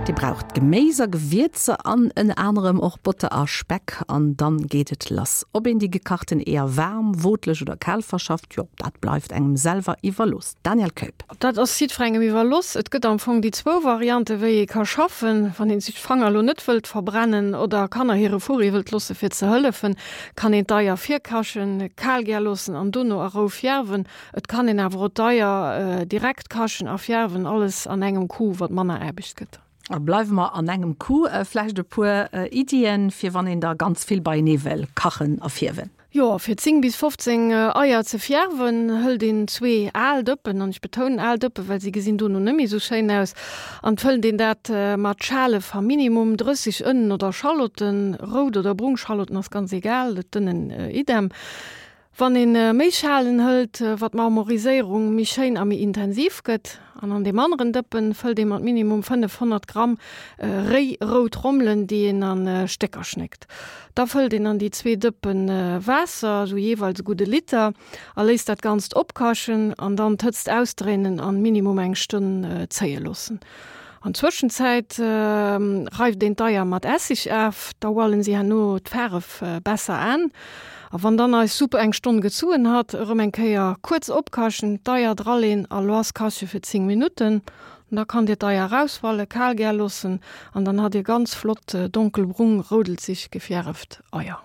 Dir braucht Geméis a Gewierzer an ënner anerem och Botter a Speck an dann geet et lass. Ob een déi gekachten Eeër waarm, wootlech oder kal verschafft, jo dat bleift engem selwer iwwerlooss. Danièle Keup. Dat ass jiddferengem iwwerloss. Et gëtt am Fong déi zwou Variante wéi ee ka schaffen. Wann een sech d'Fanger elo net wëllt verbrennen oder Kanner hire Furri wëllt loosse fir ze hëllefen, kann een d'Eier virkachen, kal gär loossen an dono a Rou fierwen. Et kann een awer och d'Eier direkt kachen a fierwen, alles an engem Coup, wat manner Aarbecht gëtt. A bleiwe mer an engem Coup, vläicht e puer Iddien, fir wann een der ganz vill beienee wëll kachen a fierwen? Jo, fir 10 bis 15 Eier ze fierwen, hëlt een zwee al Dëppen, an ech betounen al Dëppen, well si gesinn dono net méi esou schéin aus, an fëllt een dat mat Schale va minimum 30 Ënnen oder Schallotten, rout oder brung Schallotten ass ganz egal, d'Ënnen idem. Wann een méi Schalen hëlt, wat d'Marmoriséierung méi schéin a méi intensiv gëtt. An an deem aneren Dëppen fëllt ee mat minimum 500 Gramm réi rout Rommelen, déi een an Stécker schnéckt. Da fëllt een an déi zwee Dëppen Waasser, esou jeeweils e gudde Liter, a léisst dat Ganzt opkachen an dann d'Hëtzt ausdréinen an minimum eng Stonn zéie loossen. An Zwëschenzäit reift een d'Eier mat Essig af, da hualen si herno d'Faaref besser aan. A wann dann eis Supp eng Stonn gezuen hat, erëm eng Kéier kuerz opkachen, d'Eier draleen a loass kache fir 10 Minutten. Da kann dir d'Eier raushualen, kal gär loossen an dann hat dir ganz flott donkelbrung roudelzig gefierft Eier.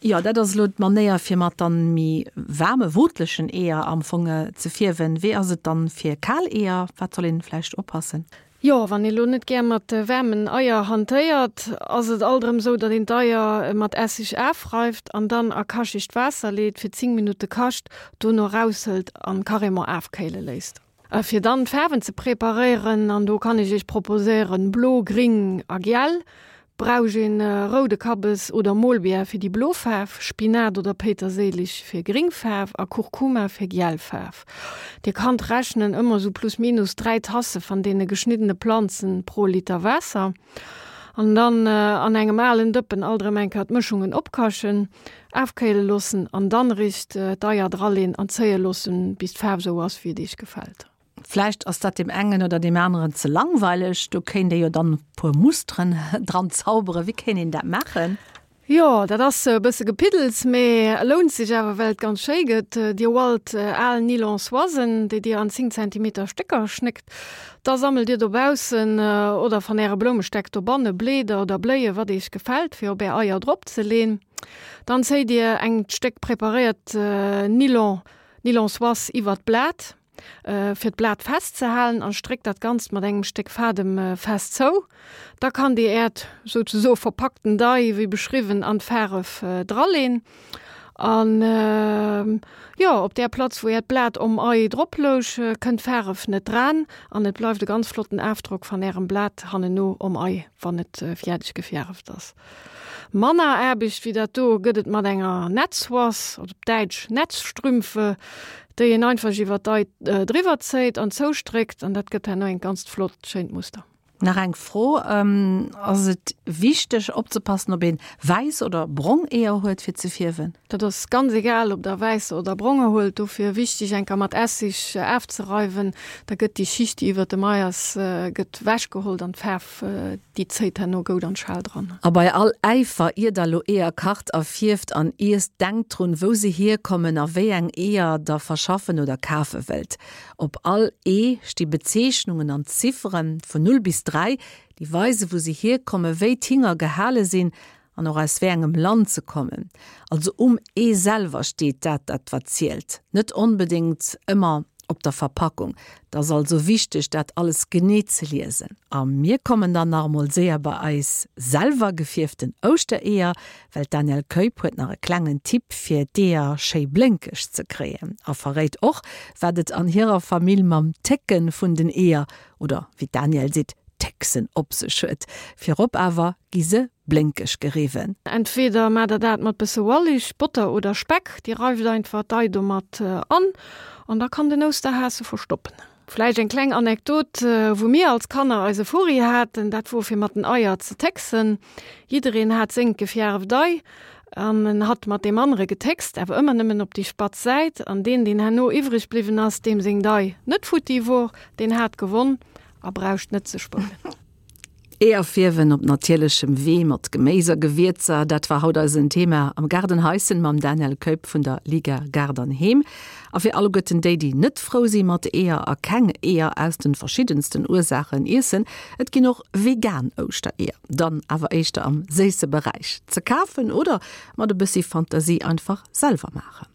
Jo, dat ass elo d'Manéier fir mat dann méi waarme, wootlechen Eeër am Fong ze fierwen. Wéi ass et dann fir kal Eeër? Wat soll een vläicht oppassen? Jo, wann ee lo net gär mat waarmen Eier hantéiert, ass et alt erëm sou, datt een d'Eier mat Esseg afreift an dann a kachegt Waasser leet, fir 10 Minutte kacht, dono eraushëlt an carrément afkéile léisst. A fir dann d'Faarwen ze preparéieren, an do kann ech iech proposéieren, blo, gring a giel, brauch een roude Kabbes oder Molbiär fir déi blo Faarf, Spinat oder Péiterséilich fir gring Faarf a Kurkuma fir giel Faarf. Dir kannt rechnen, ëmmer sou plus minus 3 Tasse van deene geschniddene Planzen pro Liter Waasser. An dann an engem alen Dëppen alt erëm eng Kéier d'Mëschungen opkachen, afkéile loossen an dann eréischt d'Eier draleen an zéie loossen, bis d'Faarf esou ass, wéi et iech gefält. Vläicht ass dat deem engen oder deem aneren ze langweileg, do kéint ee jo dann e puer Musteren dran zauberen. Wéi kéint een dat maachen? Jo, dat ass e bësse Gepiddels, mee lount sech awer, well et ganz schéi gëtt. Dir hualt al Nylon-Soisen, déi Dir an 10 Zentimeter Stécker schnéckt. Da sammelt Dir dobaussen oder van Äre Bloumestäck dobanne Bleeder oder Bléie, wat Iech gefält, fir op Är Eier drop ze leen. Dann zéit Dir engt Stéck preparéiert Nylon, Nylon-Soise iwwert d'Blat. Fir d'Blat festzehalen an stréckt dat Ganzt mat engem Stéck Fadem fest zou. Da kann dir äert souzesoe verpackten Dei, wéi beschriwwen, an d'Faaref draleen. An jo, op där Platz wou äert Blat om Ei drop louch, kënnt d'Faaref net dran an et bleift e ganz flotten Afdrock van ärem Blat hanneno om Ei, wann et fiärdeg gefiäreft ass. Manner Aarbecht wéi dat do gëtt et mat enger Netzsoise, oder op Däitsch Netzstrümpfe, déi een einfach iwwer d'Ei driwwer zéit an zoustréckt an dat gëtt herno engt ganzt flott schéint Muster. Nach eng Fro, Ass et wichteg opzepassen ob een wäiss oder brong Eeër huet fir ze fierwen? Dat ass ganz egal ob der wäiss oder bronger huelt, dofir wichteg enker mat Essig afzereiwen, da gëtt déi Schicht déi iwwert dem Ei ass gëtt wech gehollt an d'Faarf Déi zéit herno goud an d'Schal dran. A bei all Äifer, ier der lo Eeër kacht a fierft an iesst, denkt drun, wou se hierkommen a wéi eng Eeër der verschaffen oder kafe wëllt. Op all Ee sti Bezeechnungen an Zifferen, vun 0 bis 3, déi weisen, wou se hierkommen, wéi d'Hinger gehale sinn an och aus wéi engem Land se kommen. Also um Ee selwer steet dat, dat wat zielt, net onbedéngt ëmmer op der Verpackung. Et ass also wichteg, dat alles genee ze liesen. A mir kommen dann nach emol séier bei eis selwer gefierften Ouschtereeër, well d'Danièle Keup huet nach e klengen Tipp fir d'Eeër schéi blénkeg ze kréien a verréit och, wat et an hirer Famill mam Técken vun den Eeër, oder wéi d'Danièle seet, Técksen op sech huet. Virop awer gi se blénkeg geriwwen. Entweder maacht der dat mat bësse Wallich, Botter oder Speck, dir reift einfach d'Ei domat an an da kann den Ousterhas se verstoppen. Vläicht eng kleng Anekdot, wou mir als Kanner eise Furri haten, dat wor fir mat den Eier ze técksen. Jiddereen hat sengt gefjäreft Ei an en hat mat deem anere getéckst, awer ëmmer nëmmen op déi spatz Säit an deen, deen herno iwwreg bliwwen ass, deem seng Dei net futti wor, deen hat gewonn a braucht net ze spullen. Eeër fierwen op natierlechem Wee mat Geméis a Gewierzer, dat war haut eisen Thema am Gaardenhaischen mam Daniel Keup vun der Liga Gaart an Heem. A fir alleguerten déi, déi net frou si mat Eeër a keng Eeër aus de verschiddensten Ursaachen iessen, et ginn och vegan Ouschtereeër, dann awer éischter am séisse Beräich, ze kafen oder mat e bëssi Fantasie einfach selwer maachen.